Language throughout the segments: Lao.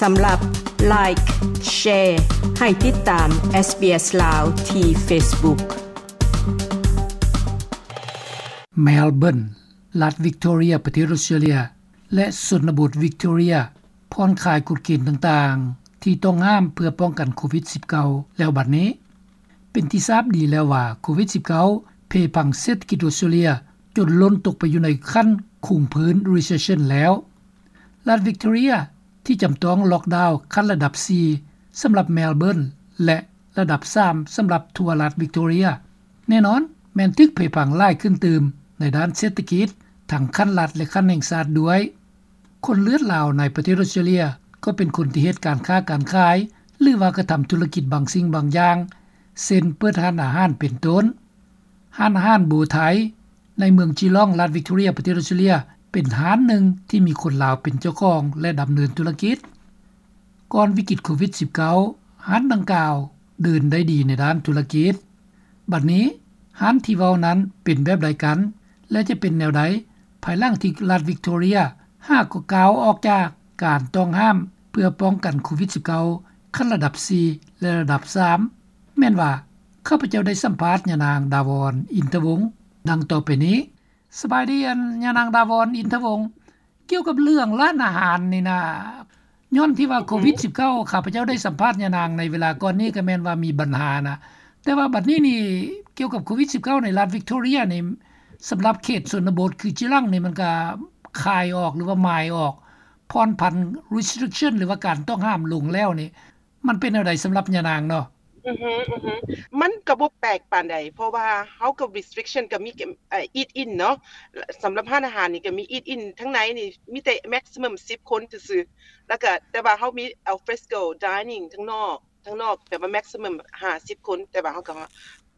ສຳລັບ Like, Share ໃຫ້ຕິດຕາມ SBS ລາວ ທີ່ Facebook. ແມລເບີນ, ລັດວິກຕໍເຣຍ ປະເທດອົດສະຕຣາເລຍ ແລະ ຊົນນະບົດວິກຕໍເຣຍ ຜ່ອນຄາຍກົດເກນຕ່າງໆ ທີ່ຕ້ອງຫ້າມເພື່ອປ້ອງກັນໂຄວິດສິບເກົ້າ ແລ້ວບັດນີ້. ເປັນທີ່ຊາບດີແລ້ວວ່າ ໂຄວິດສິບເກົ້າ ເພພັງເສດຖະກິດອົດສະຕຣາເລຍ ຈົນລົ້ນຕົກໄປຢູ່ໃນຂັ້ນຄົງພື້ນ Recession ແລ້ວ. ລັດວິກຕໍເຣຍ ທີ່ຈຳຕ້ອງລັອກດາວຂັ້ນລະດັບສີ່ ສຳລັບແມລເບີນ ແລະ ລະດັບສາມ ສຳລັບທົ່ວລັດວິກຕໍເຣຍ ແນ່ນອນແມ່ນຖືກເພພັງຫຼາຍຂຶ້ນຕື່ມໃນດ້ານເສດຖະກິດ ທັງຂັ້ນລັດ ແລະ ຂັ້ນແຫ່ງຊາດດ້ວຍ. ຄົນເລືອດລາວໃນປະເທດອົດສະຕຣາເລຍ ກໍເປັນຄົນທີ່ເຮັດການຄ້າການຂາຍ ຫຼືວ່າກະທຳທຸລະກິດບາງສິ່ງບາງຢ່າງ ເຊັ່ນ ເປີດຮ້ານອາຫານເປັນຕົ້ນ. ຮ້ານອາຫານໂບໄທ ໃນເມືອງຈີລອງ ລັດວິກຕໍເຣຍ ປະເທດອົດສະຕຣາເລຍ ເປັນຮ້ານໜຶ່ງທີ່ມີຄົນລາວເປັນເຈົ້າຂອງ ແລະ ດຳເນີນທຸລະກິດ. ກ່ອນວິກິດໂຄວິດສິບເກົ້າ ຮ້ານດັ່ງກ່າວເດີນໄດ້ດີໃນດ້ານທຸລະກິດ. ບັດນີ້ຮ້ານທີ່ເວົ້ານັ້ນເປັນແບບໃດກັນ ແລະ ຈະເປັນແນວໃດ ພາຍຫຼັງທີ່ລັດວິກຕໍເຣຍ ຫາກໍກ້າວອອກຈາກການຕ້ອງຫ້າມເພື່ອປ້ອງກັນໂຄວິດສິບເກົ້າ ຂັ້ນລະດັບສີ່ ແລະ ລະດັບສາມ ແມ່ນວ່າ ຂ້າພະເຈົ້າໄດ້ສຳພາດຍານາງ ດາວອນ ອິນທະວົງ ດັ່ງຕໍ່ໄປນີ້. ສະບາຍດີ ອັນ ຍານາງ ດາວອນ ອິນທະວົງ. ກ່ຽວກັບເລື່ອງຮ້ານອາຫານນີ້ນະ, ຍ້ອນທີ່ວ່າ ອືຮຶ ໂຄວິດສິບເກົ້າ ຂ້າພະເຈົ້າໄດ້ສຳພາດຍານາງໃນເວລາກ່ອນນີ້ ກໍແມ່ນວ່າມີບັນຫານະ. ແຕ່ວ່າບັດນີ້ນີ້ ກ່ຽວກັບໂຄວິດສິບເກົ້າ ໃນລັດວິກຕໍເຣຍນີ້ ສຳລັບເຂດຊົນນະບົດຄືຈີລັງນີ້ ມັນກໍຄາຍອອກ ຫຼືວ່າມາຍອອກ ຜ່ອນຜັນ restriction ຫຼືວ່າການຕ້ອງຫ້າມລົງແລ້ວນີ້ ມັນເປັນແນວໃດສຳລັບຍານາງເນາະ? ອືຮຶ ອືຮຶ ມັນກໍບໍ່ແປກປານໃດ ເພາະວ່າເຮົາກັບ restriction ກໍມີ eat in ເນາະ. ສຳລັບຮ້ານອາຫານນີ້ກໍມີ eat in ທາງໃນນີ້ມີແຕ່ maximum ສິບຄົນຊື່ໆ ແລ້ວກໍ ແຕ່ວ່າເຮົາມີ al fresco dining ທາງນອກ ທາງນອກ ແບບວ່າ maximum ຫ້າສິບຄົນ ແຕ່ວ່າເຮົາກໍ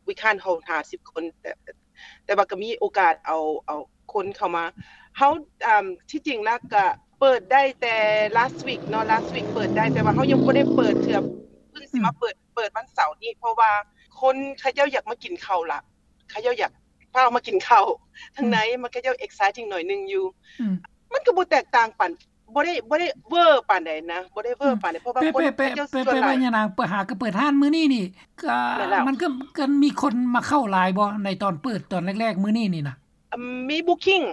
we can't hold ຫ້າສິບຄົນ ແຕ່ ແຕ່ວ່າກໍມີໂອກາດເອົາ ເອົາຄົນເຂົ້າມາ. ເຮົາ ອາ ທີ່ຈິງແລ້ວກໍເປີດໄດ້ແຕ່ last week ເນາະ last week ເປີດໄດ້ ແຕ່ວ່າເຮົາຍັງບໍ່ໄດ້ເປີດເທື່ອ ເພິ່ງຊິມາເປີດ ອືມ ເປີດວັນເສົານີ້ ເພາະວ່າຄົນເຂົາເຈົ້າຢາກມາກິນເຂົ້າລະ ເຂົາເຈົ້າຢາກຟ້າວມາກິນເຂົ້າທາງໃນ ອືມ ມັນ ເຂົາເຈົ້າ exciting ໜ້ອຍໜຶ່ງຢູ່ ອືມ ມັນກໍບໍ່ແຕກຕ່າງປານ ບໍ່ໄດ້ ບໍ່ໄດ້ເວີປານໃດນະ ບໍ່ໄດ້ເວີ ອືມ ປານໃດ ເພາະວ່າ ແປ ຄົນ ແປ ເຂົາເຈົ້າ ແປ ສ່ວນຫຼາຍ ແປວ່າຍານາງ ເປີດ ຫາກໍເປີດຮ້ານມື້ນີ້ນີ້ ກໍ ແມ່ນແລ້ວ ມັນກໍ ກໍມີຄົນມາເຂົ້າຫຼາຍບໍ່ ໃນຕອນເປີດຕອນແລກໆມື້ນີ້ນີ້ນະ? ອາ ມີ booking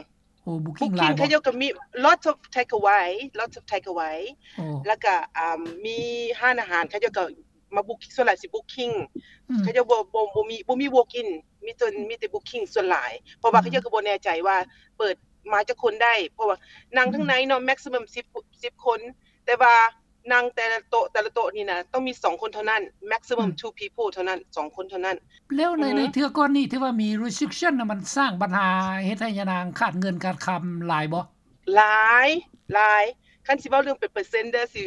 ໂອ້ booking ຫຼາຍ booking ເຂົາເຈົ້າກໍມີ lots of take away lots of take away ໂອ້ ແລ້ວກໍ ອາ ມີຮ້ານອາຫານ ເຂົາເຈົ້າກໍມາ book ສ່ວນຫຼາຍຊິ booking ອືມ ເຂົາເຈົ້າບໍ່ ບໍ່ ບໍ່ມີ ບໍ່ມີ walk in ມີແຕ່ ອືມ ມີແຕ່ booking ສ່ວນຫຼາຍ ເພາະວ່າ ອືມ ເຂົາເຈົ້າກໍບໍ່ແນ່ໃຈວ່າເປີດມາຈັກຄົນໄດ້ ເພາະວ່ານັ່ງ ອືມ ທາງໃນເນາະ maximum ສິບ ສິບຄົນ ແຕ່ວ່ານັ່ງແຕ່ລະໂຕະ ແຕ່ລະໂຕະນີ້ນະ ຕ້ອງມີສອງຄົນເທົ່ານັ້ນ maximum ອືມ two people ເທົ່ານັ້ນ ສອງຄົນເທົ່ານັ້ນ. ແລ້ວໃນ ອືຮຶ ໃນເທື່ອກ່ອນນີ້ ທີ່ວ່າມີ restriction ນະ ມັນສ້າງບັນຫາເຮັດໃຫ້ຍານາງຂາດເງິນຂາດຄຳຫຼາຍບໍ່? ຫຼາຍ ຫຼາຍ. ຄັນຊິເວົ້າເລື່ອງເປັນເປີເຊັນເດີ ຊິ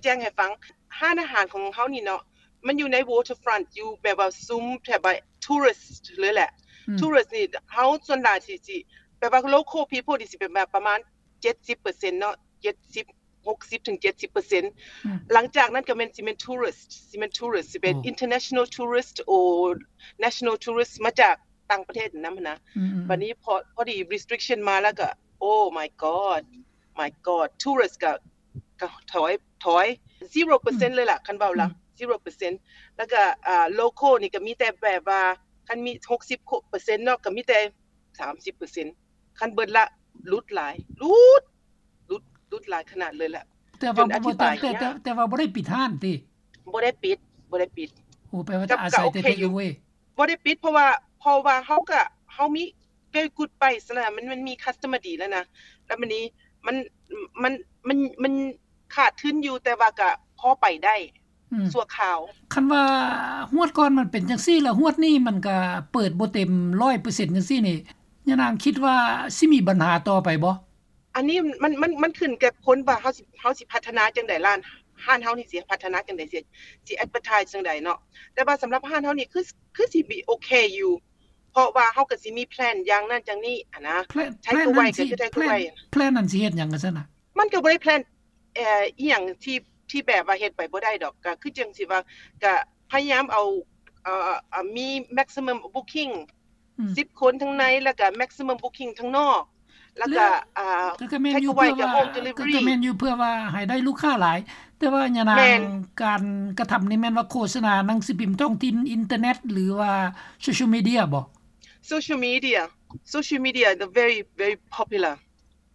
ແຈ້ງໆໃຫ້ຟັງ ຮ້ານອາຫານຂອງເຮົານີ້ເນາະ ມັນຢູ່ໃນ waterfront ຢູ່ແບບວ່າຊຸມແຖວ tourist ເລີຍແຫຼະ ອືມ tourist ນີ້ ເຮົາສ່ວນຫຼາຍຊິ ຊິ ແບບວ່າ local people ນີ້ຊິເປັນແບບປະມານ ເຈັດສິບເປີເຊັນເນາະ ເຈັດສິບ ຫົກສິບເຖິງເຈັດສິບເປີເຊັນ ອືມ ຫຼັງຈາກນັ້ນກໍແມ່ນ ຊິແມ່ນ tourist ຊິແມ່ນ tourist ຊິເປັນ ໂອ້ international tourist or national tourist ມາຈາກຕ່າງປະເທດນຳຫັ້ນນະ ອືມໆໆ ບັດນີ້ພໍ ພໍດີ restriction ມາແລ້ວກໍ oh my god my god tourist ກໍ ກໍຖອຍ ຖອຍ zero ເປີເຊັນ ອືມ ເລີຍລະ ຄັນເວົ້າລະ ອືມ zero ເປີເຊັນ ແລ້ວກໍ ອ່າ local ນີ້ກໍມີແຕ່ແບບວ່າ ຄັນມີ ຫົກສິບເປີເຊັນເນາະ ກໍມີແຕ່ ສາມສິບເປີເຊັນ ຄັນເບິດລະ ຫຼຸດຫຼາຍ ຫຼຸດ ຫຼຸດ ຫຼຸດຫຼາຍຂະໜາດເລີຍລະ ແຕ່ວ່າ ແຕ່ ແຕ່ ແຕ່ວ່າບໍ່ໄດ້ປິດຮ້ານຕິ? ບໍ່ໄດ້ປິດ ບໍ່ໄດ້ປິດ. ໂອ້ ແປວ່າຈະອາໄສແຕ່ take away ບໍ່ໄດ້ປິດ ເພາະວ່າ ເພາະວ່າເຮົາກະ ເຮົາມີ very good price ຫັ້ນນະ ມັນ ມັນມີ customer ດີແລ້ວນະ ແລ້ວບາດນີ້ ມັນ ມັນ ມັນ ມັນຂາດທຶນຢູ່ ແຕ່ວ່າກະພໍໄປໄດ້ ອືມ ຊົ່ວຄາວ. ຄັນວ່າຮວດກ່ອນມັນເປັນຈັ່ງຊີ້ ແລ້ວຮວດນີ້ມັນກະເປີດບໍ່ເຕັມຮ້ອຍເປີເຊັນຈັ່ງຊີ້ນີ້ ຍານາງຄິດວ່າຊິມີບັນຫາຕໍ່ໄປບໍ່? ອັນນີ້ມັນ ມັນ ມັນຂຶ້ນກັບຄົນວ່າເຮົາຊິ ເຮົາຊິພັດທະນາຈັ່ງໃດ ຮ້ານ ຮ້ານເຮົານີ້ຊິພັດທະນາຈັ່ງໃດ ຊິ ຊິ advertise ຈັ່ງໃດເນາະ ແຕ່ວ່າສຳລັບຮ້ານເຮົານີ້ ຄື ຄືຊິມີໂອເຄຢູ່ ເພາະວ່າເຮົາກໍຊິມີ plan ຢ່າງນັ້ນຢ່າງນີ້ຫັ້ນນະ plan ເພາະວ່າ plan ນັ້ນຊິເຮັດຫຍັງຊັ້ນນະ? ມັນກໍບໍ່ໄດ້ plan ເອີ ອີ່ຫຍັງທີ່ ທີ່ແບບວ່າເຮັດໄປບໍ່ໄດ້ດອກ ກໍຄືຈັ່ງຊິວ່າ ກໍພະຍາຍາມເອົາ ເອີ ເອີ ມີ maximum booking ອືມ ສິບຄົນທາງໃນ ແລ້ວກໍ maximum booking ທາງນອກ ແລ້ວກໍ ອ່າ ກໍແມ່ນຢູ່ເພື່ອວ່າ ກໍແມ່ນຢູ່ເພື່ອວ່າໃຫ້ໄດ້ລູກຄ້າຫຼາຍ. ແຕ່ວ່າຍານາງ ແມ່ນ ການກະທຳນີ້ແມ່ນວ່າໂຄສະນາໜັງສືພິມທ້ອງຖິ່ນ ອິນເຕີເນັດ ຫຼືວ່າໂຊຊຽວມີເດຍບໍ? ໂຊຊຽວມີເດຍ ໂຊຊຽວມີເດຍ the very very popular.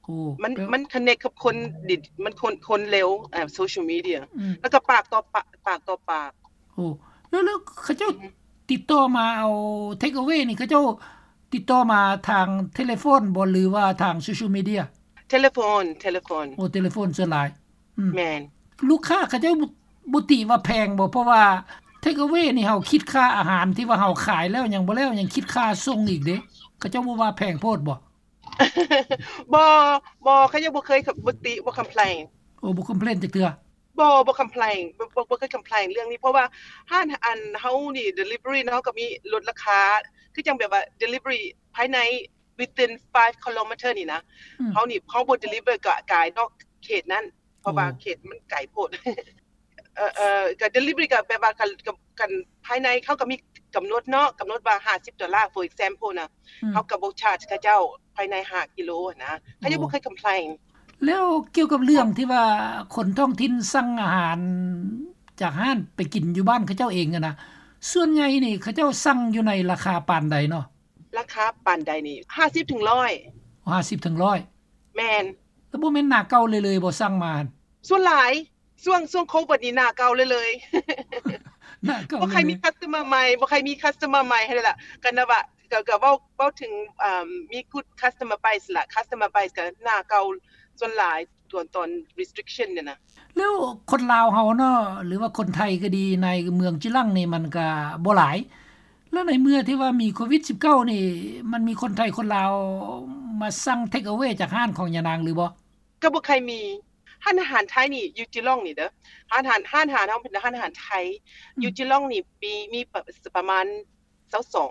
ໂອ້ ມັນ ມັນ connect ກັບຄົນ ມັນຄົນ ຄົນເລັວ ອ່າ ໂຊຊຽວມີເດຍ ອືມ ແລ້ວກໍປາກຕໍ່ປາກ ປາກຕໍ່ປາກ. ໂອ້ ແລ້ວ ແລ້ວເຂົາເຈົ້າ ອືມ ຕິດຕໍ່ມາເອົາ take away ນີ້ ເຂົາເຈົ້າຕິດຕໍ່ມາທາງເທເລໂຟນບໍ ຫຼືວ່າທາງໂຊຊຽວມີເດຍ? ເທເລໂຟນ ເທເລໂຟນ. ໂອ້ ເທເລໂຟນສ່ວນຫຼາຍ. ອືມ ແມ່ນ. ລູກຄ້າເຂົາເຈົ້າບໍ່ ບໍ່ຕິວ່າແພງບໍ? ເພາະວ່າ take away ນີ້ເຮົາຄິດຄ່າອາຫານທີ່ວ່າເຮົາຂາຍແລ້ວ ຍັງບໍ່ແລ້ວ ຍັງຄິດຄ່າສົ່ງອີກເດ້. ເຂົາເຈົ້າບໍ່ວ່າແພງໂພດບໍ? ບໍ່ ບໍ່ ເຂົາຍັງບໍ່ເຄີຍ ບໍ່ຕິ ບໍ່ complain. ໂອ້ ບໍ່ complain ຈັກເທື່ອ? ບໍ່ ບໍ່ complain ບໍ່ ບໍ່ ບໍ່ເຄີຍ complain ເລື່ອງນີ້ ເພາະວ່າຮ້ານ ອັນ ເຮົານີ້ delivery ເນາະ ເຮົາກໍມີລົດລາຄາ ຄືຈັ່ງແບບວ່າ delivery ພາຍໃນ within five kilometer ນີ້ນະ ອືມ ເຮົານີ້ ເຮົາບໍ່ deliver ກະກາຍນອກເຂດນັ້ນ ເພາະວ່າ ໂອ້ ເຂດມັນໄກໂພດ. ເອີ ເອີ ກະ delivery ກະແບບວ່າ ກະ ກະ ກະພາຍໃນເຂົາກະມີກຳນົດເນາະ ກຳນົດວ່າຫ້າສິບໂດລາ for example ນະ ອືມ ເຮົາກະບໍ່ charge ເຂົາເຈົ້າພາຍໃນຫ້າກິໂລຫັ້ນນະ ເຂົາຍັງ ໂອ້ ບໍ່ເຄີຍ complain. ແລ້ວກ່ຽວກັບເລື່ອງທີ່ວ່າຄົນທ້ອງຖິ່ນສັ່ງອາຫານຈາກຮ້ານໄປກິນຢູ່ບ້ານເຂົາເຈົ້າເອງຫັ້ນນະ ສ່ວນໃຫຍ່ນີ້ເຂົາເຈົ້າສັ່ງຢູ່ໃນລາຄາປານໃດເນາະ? ລາຄາປານໃດນີ້ ຫ້າສິບເຖິງຮ້ອຍ. ຫ້າສິບເຖິງຮ້ອຍ. ແມ່ນ. ແລ້ວບໍ່ແມ່ນໜ້າເກົ່າເລີຍໆບໍ່ ສັ່ງມາ? ສ່ວນຫຼາຍ ຊ່ວງ ຊ່ວງໂຄວິດນີ້ໜ້າເກົ່າເລີຍໆ ໜ້າເກົ່າເລີຍໆ ບໍ່ໃຄ່ມີ customer ໃໝ່ ບໍ່ໃຄ່ມີ customer ໃໝ່ຫັ້ນແຫຼະ ກໍນະວ່າ ກໍ ກໍເວົ້າ ເວົ້າເຖິງ ອ່າ ມີ good customer base ລະ customer base ກໍໜ້າເກົ່າສ່ວນຫຼາຍ ຕອນ ຕອນ restriction ນີ້ນະ. ແລ້ວຄົນລາວເຮົາເນາະ ຫຼືວ່າຄົນໄທກໍດີ ໃນເມືອງຈິລັງນີ້ມັນກໍບໍ່ຫຼາຍ ແລ້ວໃນເມື່ອທີ່ວ່າມີໂຄວິດສິບເກົ້ານີ້ ມັນມີຄົນໄທຄົນລາວມາສັ່ງ take away ຈາກຮ້ານຂອງຍານາງຫຼືບໍ່? ກໍບໍ່ຄ່ອຍມີ. ຮ້ານອາຫານໄທນີ້ຢູ່ຈິລອງນີ້ເດີ ຮ້ານອາຫານ ຮ້ານອາຫານເຮົາເປັນຮ້ານອາຫານໄທ ອືມ ຢູ່ຈິລອງນີ້ມີ ມີປະ ປະມານຊາວສອງ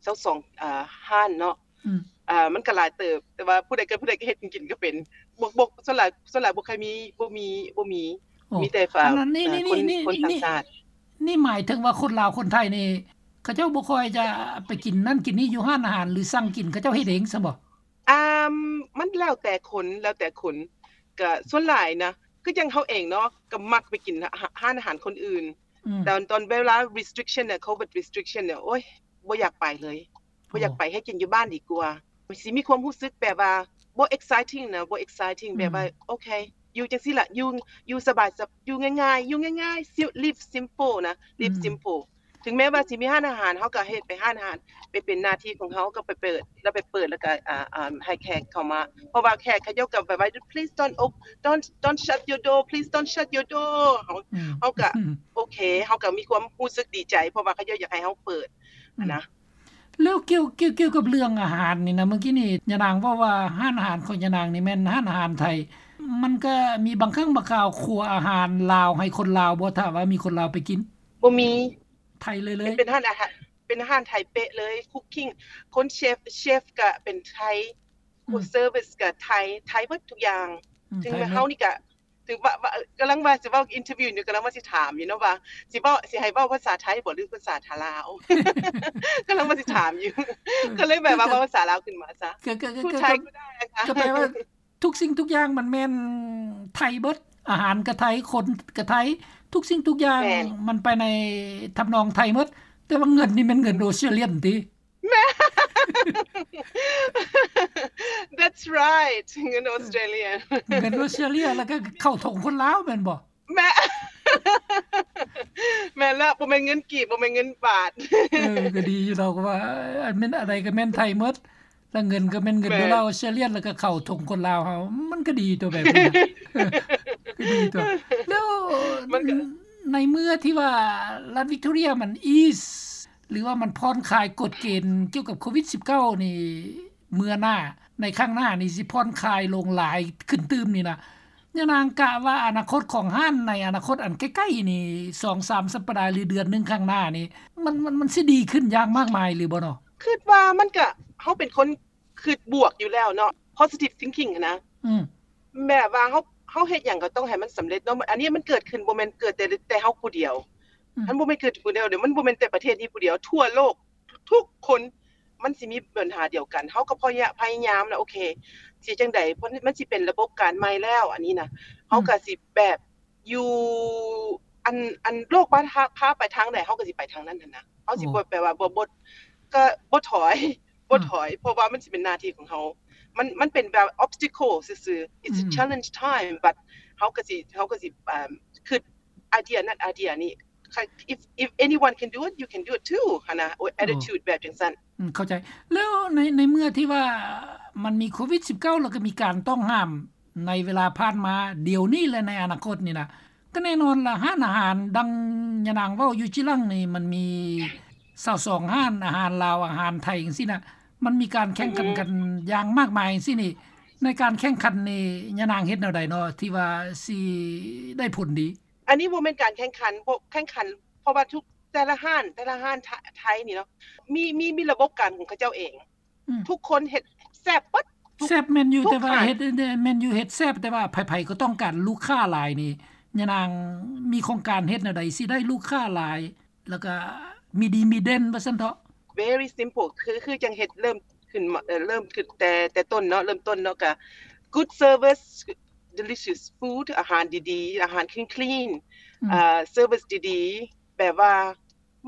ຊາວສອງ ອ່າ ຮ້ານເນາະ ອືມ ອ່າ ມັນກໍຫຼາຍເຕີບ ແຕ່ວ່າຜູ້ໃດກໍ ຜູ້ໃດກໍເຮັດກິນກໍເປັນ ບໍ່ ບໍ່ ສ່ວນຫຼາຍ ສ່ວນຫຼາຍບໍ່ຄ່ອຍມີ ບໍ່ມີ ບໍ່ມີ ໂອ້ ມີແຕ່ ອ່າ ຄົນ ຄົນຕ່າງຊາດ. ນີ້ໝາຍເຖິງວ່າຄົນລາວຄົນໄທນີ້ ເຂົາເຈົ້າບໍ່ຄ່ອຍຈະໄປກິນນັ້ນກິນນີ້ຢູ່ຮ້ານອາຫານ ຫຼືສັ່ງກິນ ເຂົາເຈົ້າເຮັດເອງຊັ້ນບໍ? ອ່າ ມັນແລ້ວແຕ່ຄົນ ແລ້ວແຕ່ຄົນ ກະສ່ວນຫຼາຍນະ ຄືຈັ່ງເຮົາເອງເນາະ ກະມັກໄປກິນ ຮ້ານອາຫານຄົນອື່ນ ອືມ ຕອນ ຕອນເວລາ restriction ນະ ໂຄວິດ restriction ນະ ໂອ້ຍ ບໍ່ຢາກໄປເລີຍ ບໍ່ຢາກໄປ ເຮັດກິນຢູ່ບ້ານດີກວ່າ. ຊິມີຄວາມຮູ້ສຶກແບບວ່າບໍ່ exciting ນະ ບໍ່ exciting ແບບວ່າ ອືມ ໂອເຄ ຢູ່ຈັ່ງຊີ້ລະ ຢູ່ ຢູ່ສະບາຍ ຢູ່ງ່າຍໆ ຢູ່ງ່າຍໆ live simple ນະ live simple ເຖິງແມ້ວ່າຊິມີຮ້ານອາຫານ ເຮົາກໍເຮັດໄປຮ້ານອາຫານ ໄປເປັນໜ້າທີ່ຂອງເຮົາ ກໍໄປເປີດ ແລ້ວໄປເປີດ ແລ້ວກໍ ອ່າ ອ່າ ໃຫ້ແຂກເຂົ້າມາ ເພາະວ່າແຂກເຂົາເຈົ້າກໍແບບວ່າ please don't op- don't don't shut your door please don't shut your door ເຮົາ ອືມ ເຮົາກໍ ອືມ ໂອເຄ ເຮົາກໍມີຄວາມຮູ້ສຶກດີໃຈ ເພາະວ່າເຂົາເຈົ້າຢາກໃຫ້ເຮົາເປີດ ອືມ ຫັ້ນນະ. ແລ້ວກ່ຽວ ກ່ຽວ ກ່ຽວກັບເລື່ອງອາຫານນີ້ນະ ເມື່ອກີ້ນີ້ຍານາງເວົ້າວ່າຮ້ານອາຫານຂອງຍານາງນີ້ແມ່ນຮ້ານອາຫານໄທ ມັນກໍມີບາງຄັ້ງບາງຄາວຄົວອາຫານລາວໃຫ້ຄົນລາວບໍ່ ຖ້າວ່າມີຄົນລາວໄປກິນ? ບໍ່ມີ. ໄທເລີຍ ເລີຍ ເປັນຮ້ານອາຫານ ເປັນຮ້ານໄທເປະເລີຍ cooking ຄົນເຊຟ ເຊຟກະເປັນໄທ ອືມ service ກະໄທ ໄທເບິດທຸກຢ່າງ ອືມ ເຖິງແມ່ນເຮົານີ້ກະ ເຖິງວ່າ ວ່າ ກຳລັງວ່າຊິເວົ້າ interview ຢູ່ ກຳລັງວ່າຊິຖາມຢູ່ເນາະວ່າ ຊິເວົ້າ ຊິໃຫ້ເວົ້າພາສາໄທບໍ ຫຼືພາສາລາວ ກຳລັງວ່າຊິຖາມຢູ່ ເອີ ກໍເລີຍແບບວ່າເວົ້າພາສາລາວຂຶ້ນມາຊະ ກໍ ກໍ ກໍ ກໍໄດ້ ກໍແປວ່າ ທຸກສິ່ງທຸກຢ່າງມັນແມ່ນໄທເບິດ ອາຫານກໍໄທ ຄົນກໍໄທ ທຸກສິ່ງທຸກຢ່າງ ແມ່ນ ມັນໄປໃນທຳນອງໄທເບິດ ແຕ່ວ່າເງິນນີ້ແມ່ນເງິນ Australian ຕິ? ແມ່ນ that's right ເງິນ Australian ເງິນ Australia ແລ້ວກໍເຂົ້າຖົງຄົນລາວແມ່ນບໍ່? ແມ່ນ ແມ່ນລະ ບໍ່ແມ່ນເງິນກີບ ບໍ່ແມ່ນເງິນບາດ ເອີ ກໍດີຢູ່ດອກວ່າ ອັນແມ່ນ ອັນໃດກໍແມ່ນໄທໝົດ ແລ້ວເງິນກໍແມ່ນເງິນໂດລາ Australian ແລ້ວກໍເຂົ້າຖົງຄົນລາວເຮົາ ມັນກໍດີຕົວແບບນີ້ນະ ກໍດີຕົວ. ແລ້ວໃນເມື່ອທີ່ວ່າລັດ Victoria ມັນ ease ຫຼືວ່າມັນຜ່ອນຄາຍກົດເກນກ່ຽວກັບໂຄວິດສິບເກົ້ານີ້ ເມື່ອໜ້າ ໃນຄັ້ງໜ້ານີ້ຊິຜ່ອນຄາຍລົງຫຼາຍຂຶ້ນຕື່ມນີ້ນະ ຍານາງກະວ່າອະນາຄົດຂອງຮ້ານໃນອະນາຄົດອັນໃກ້ໆນີ້ ສອງສາມສັບປະດາ ຫຼືເດືອນໜຶ່ງຂ້າງໜ້ານີ້ ມັນ ມັນ ມັນຊິດີຂຶ້ນຢ່າງມາກມາຍຫຼືບໍ່ເນາະ? ຄິດວ່າມັນກະ ເຮົາເປັນຄົນຄິດບວກຢູ່ແລ້ວເນາະ positive thinking ຫັ້ນນະ ອືມ ແບບວ່າເຮົາ ເຮົາເຮັດຫຍັງກໍຕ້ອງໃຫ້ມັນສຳເລັດເນາະ ອັນນີ້ມັນເກີດຂຶ້ນບໍ່ແມ່ນເກີດແຕ່ ແຕ່ເຮົາຜູ້ດຽວ ອືມ ມັນບໍ່ແມ່ນເກີດຜູ້ດຽວເດ້ ມັນບໍ່ແມ່ນແຕ່ປະເທດນີ້ຜູ້ດຽວ ທົ່ວໂລກ ທຸກຄົນ ມັນຊິມີບັນຫາດຽວກັນ. ເຮົາກໍພະຍາ ພະຍາຍາມນະ ໂອເຄ ຊິຈັ່ງໃດ ເພາະມັນຊິເປັນລະບົບການໃໝ່ແລ້ວ ອັນນີ້ນະ ເຮົາກໍຊິແບບຢູ່ ອັນ ອັນໂລກພາ ພາ ພາໄປທາງໃດ ເຮົາກໍຊິໄປທາງນັ້ນຫັ້ນນະ. ເຮົາຊິບໍ່ແບບວ່າ ບໍ່ ບໍ່ ກໍບໍ່ຖອຍ ບໍ່ຖອຍ ເພາະວ່າມັນຊິເປັນໜ້າທີ່ຂອງເຮົາ. ມັນ ມັນເປັນແບບ obstacle ຊື່ໆ it's a challenge time, but ເຮົາກໍຊິ ເຮົາກໍຊິ ເອີ່ມ ຄິດ idea ນັ້ນ idea ນີ້ if if anyone can do it, you can do it too ຫັ້ນນະ. attitude ແບບຈັ່ງຊັ້ນ. ອືມ ເຂົ້າໃຈ. ແລ້ວໃນ ໃນເມື່ອທີ່ວ່າມັນມີໂຄວິດສິບເກົ້າ ແລ້ວກໍມີການຕ້ອງຫ້າມໃນເວລາຜ່ານມາ ດຽວນີ້ ແລະ ໃນອະນາຄົດນີ້ນະ ກໍແນ່ນອນລະ ຮ້ານອາຫານດັ່ງຍານາງເວົ້າຢູ່ຈີ່ຫຼັງນີ້ ມັນມີຊາວສອງຮ້ານ ອາຫານລາວ ອາຫານໄທ ຈັ່ງຊີ້ນະ ມັນມີການແຂ່ງຂັນກັນຢ່າງມາກມາຍຈັ່ງຊີ້ນີ້. ໃນການແຂ່ງຂັນນີ້ ຍານາງເຮັດແນວໃດເນາະ ທີ່ວ່າຊິໄດ້ຜົນດີ? ອັນນີ້ບໍ່ແມ່ນການແຂ່ງຂັນ ບໍ່ແຂ່ງຂັນ ເພາະວ່າທຸກ ແຕ່ລະຮ້ານ ແຕ່ລະຮ້ານ ທ- ໄທນີ້ເນາະ ມີ ມີ ມີລະບົບການຂອງເຂົາເຈົ້າເອງ. ອືມ ທຸກຄົນເຮັດແຊບເບິດ ແຊບແມ່ນຢູ່ ແຕ່ວ່າເຮັດ ແມ່ນຢູ່ ເຮັດແຊບ ແຕ່ວ່າໃຜໆກໍຕ້ອງການລູກຄ້າຫຼາຍນີ້ ຍານາງມີໂຄງການເຮັດແນວໃດຊິໄດ້ລູກຄ້າຫຼາຍ ແລ້ວກໍມີດີມີເດັ່ນວ່າຊັ້ນເຖາະ? Very simple ຄື ຄືຈັ່ງເຮັດເລີ່ມຂຶ້ນມາ ເອີ່ ເລີ່ມຂຶ້ນແຕ່ ແຕ່ຕົ້ນເນາະ ເລີ່ມຕົ້ນເນາະ ກໍ good service, delicious food ອາຫານດີໆ ອາຫານ clean clean ອືມ ເອີ່ service ດີໆ ແບບວ່າ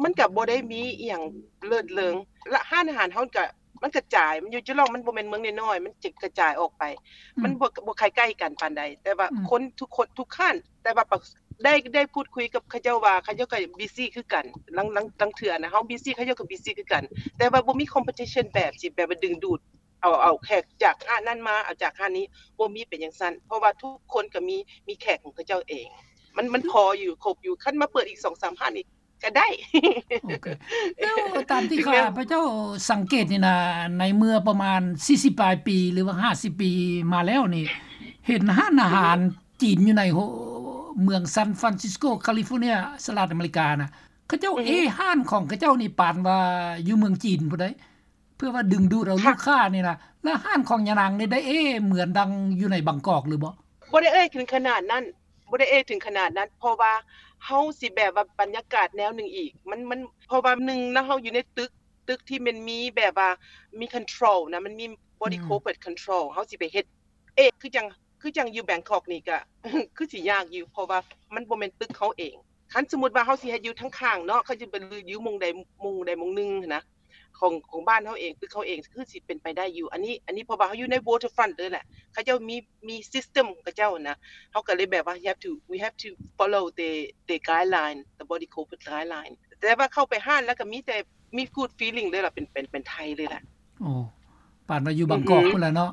ມັນກະບໍ່ໄດ້ມີອີ່ຫຍັງເລີດເລີງ ລະຮ້ານອາຫານເຮົາກະ ມັນກະຈາຍ ມັນຢູ່ຈີ່ຫຼອງ ມັນບໍ່ແມ່ນເມືອງນ້ອຍໆ ມັນຈະກະຈາຍອອກໄປ ອືມ ມັນບໍ່ ບໍ່ຄ່ອຍໃກ້ກັນປານໃດ ແຕ່ວ່າ ອືມ ຄົນທຸກຄົນ ທຸກຮ້ານ ແຕ່ວ່າໄດ້ ໄດ້ພູດຄຸຍກັບເຂົາເຈົ້າວ່າ ເຂົາເຈົ້າກະ busy ຄືກັນ ລາງ ລາງ ລາງເທື່ອນະ ເຮົາ busy ເຂົາເຈົ້າກະ busy ຄືກັນ ແຕ່ວ່າບໍ່ມີ competition ແບບຊິແບບວ່າດຶງດູດ ເອົາ ເອົາແຂກຈາກຮ້ານນັ້ນມາ ເອົາຈາກຮ້ານນີ້ ບໍ່ມີເປັນຈັ່ງຊັ້ນ ເພາະວ່າທຸກຄົນກະມີ ມີແຂກຂອງເຂົາເຈົ້າເອງ ມັນ ມັນພໍຢູ່ ຄົບຢູ່ ຄັນມາເປີດອີກສອງສາມຮ້ານນີ້ ກະໄດ້. ໂອເຄ ແລ້ວຕາມທີ່ຂ້າພະເຈົ້າສັງເກດນີ້ນະ ໃນເມື່ອປະມານສີ່ສິບປາຍປີ ຫຼືວ່າຫ້າສິບປີມາແລ້ວນີ້ ເຫັນຮ້ານອາຫານຈີນຢູ່ໃນ ເມືອງ San Francisco California ສະຫະລັດອາເມລິການະ ເຂົາເຈົ້າເອຮ້ານຂອງເຂົາເຈົ້ານີ້ປານວ່າຢູ່ເມືອງຈີນພຸ້ນໃດ ເພື່ອວ່າດຶງດູດເອົາລູກຄ້ານີ້ນະ ແລ້ວຮ້ານຂອງຍານາງນີ້ໄດ້ເອເໝືອນດັ່ງຢູ່ໃນບາງກອກຫຼືບໍ່? ບໍ່ໄດ້ເອີ່ຍເຖິງຂະໜາດນັ້ນ ບໍ່ໄດ້ເອີ່ຍເຖິງຂະໜາດນັ້ນ ເພາະວ່າເຮົາຊິແບບວ່າບັນຍາກາດແນວໜຶ່ງອີກ ມັນ ມັນ ເພາະວ່າໜຶ່ງນະ ເຮົາຢູ່ໃນຕຶກ ຕຶກທີ່ມັນມີແບບວ່າມີ control ນະ ມັນມີ body corporate control ເຮົາຊິໄປເຮັດເອງ ຄືຈັ່ງ ຄືຈັ່ງຢູ່ແບງກອກນີ້ກະ ຄືຊິຍາກຢູ່ ເພາະວ່າມັນບໍ່ແມ່ນຕຶກເຮົາເອງ ຄັນສົມມຸດວ່າເຮົາຊິເຮັດຢູ່ທາງຂ້າງເນາະ ເຂົາຈະໄປຢູ່ໝ່ອງໃດ ໝ່ອງໃດໝ່ອງໜຶ່ງຫັ້ນນະ ຂອງ ຂອງບ້ານເຮົາເອງ ຕຶກເຮົາເອງ ຄືຊິເປັນໄປໄດ້ຢູ່ ອັນນີ້ ອັນນີ້ເພາະວ່າເຮົາຢູ່ໃນ waterfront ເລີຍແຫຼະ ເຂົາເຈົ້າມີ ມີ system ຂອງເຂົາເຈົ້ານະ ເຮົາກະເລີຍແບບວ່າ we have to we have to follow the the guideline, the body corporate guideline ແຕ່ວ່າເຂົ້າໄປຮ້ານແລ້ວກະມີແຕ່ ມີ good feeling ເລີຍລະ ເປັນ ເປັນ ເປັນໄທເລີຍລະ. ໂອ້ ປານວ່າຢູ່ບາງກອກພຸ້ນລະເນາະ.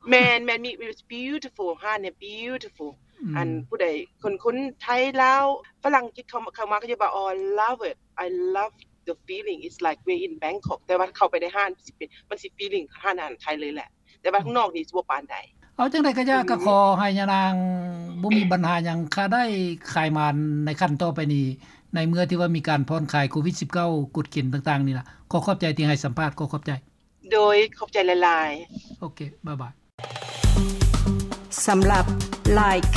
ແມ່ນໆ ມີ it's beautiful ຮ້ານນີ້ beautiful ອັນຜູ້ໃດ ຄົນ ຄົນໄທ ລາວ ຝຣັ່ງກິດເຂົ້າ ເຂົ້າມາ ເຂົາຈະວ່າ oh I love it, I love the feeling, it's like we're in Bangkok ແຕ່ວ່າເຂົ້າໄປໃນຮ້ານ ມັນຊິເປັນ ມັນຊິ feeling ຮ້ານອາຫານໄທເລີຍແຫຼະ ແຕ່ວ່າຂ້າງນອກນີ້ຊິບໍ່ປານໃດ. ເອົາຈັ່ງໃດກະຢ່າ ກະຂໍໃຫ້ຍານາງບໍ່ມີບັນຫາຫຍັງ ຄາໄດ້ຂາຍໝານໃນຂັ້ນຕໍ່ໄປນີ້ ໃນເມື່ອທີ່ວ່າມີການຜ່ອນຄາຍໂຄວິດສິບເກົ້າ ກົດເກນຕ່າງໆນີ້ລະ. ຂໍຂອບໃຈທີ່ໃຫ້ສຳພາດ ຂໍຂອບໃຈ. ໂດຍ ຂອບໃຈຫຼາຍໆ. ໂອເຄ ບາຍບາຍ. ສຳລັບ like,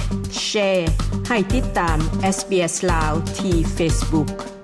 share ໃຫ້ຕິດຕາມ SBS ລາວ ທີ່ Facebook.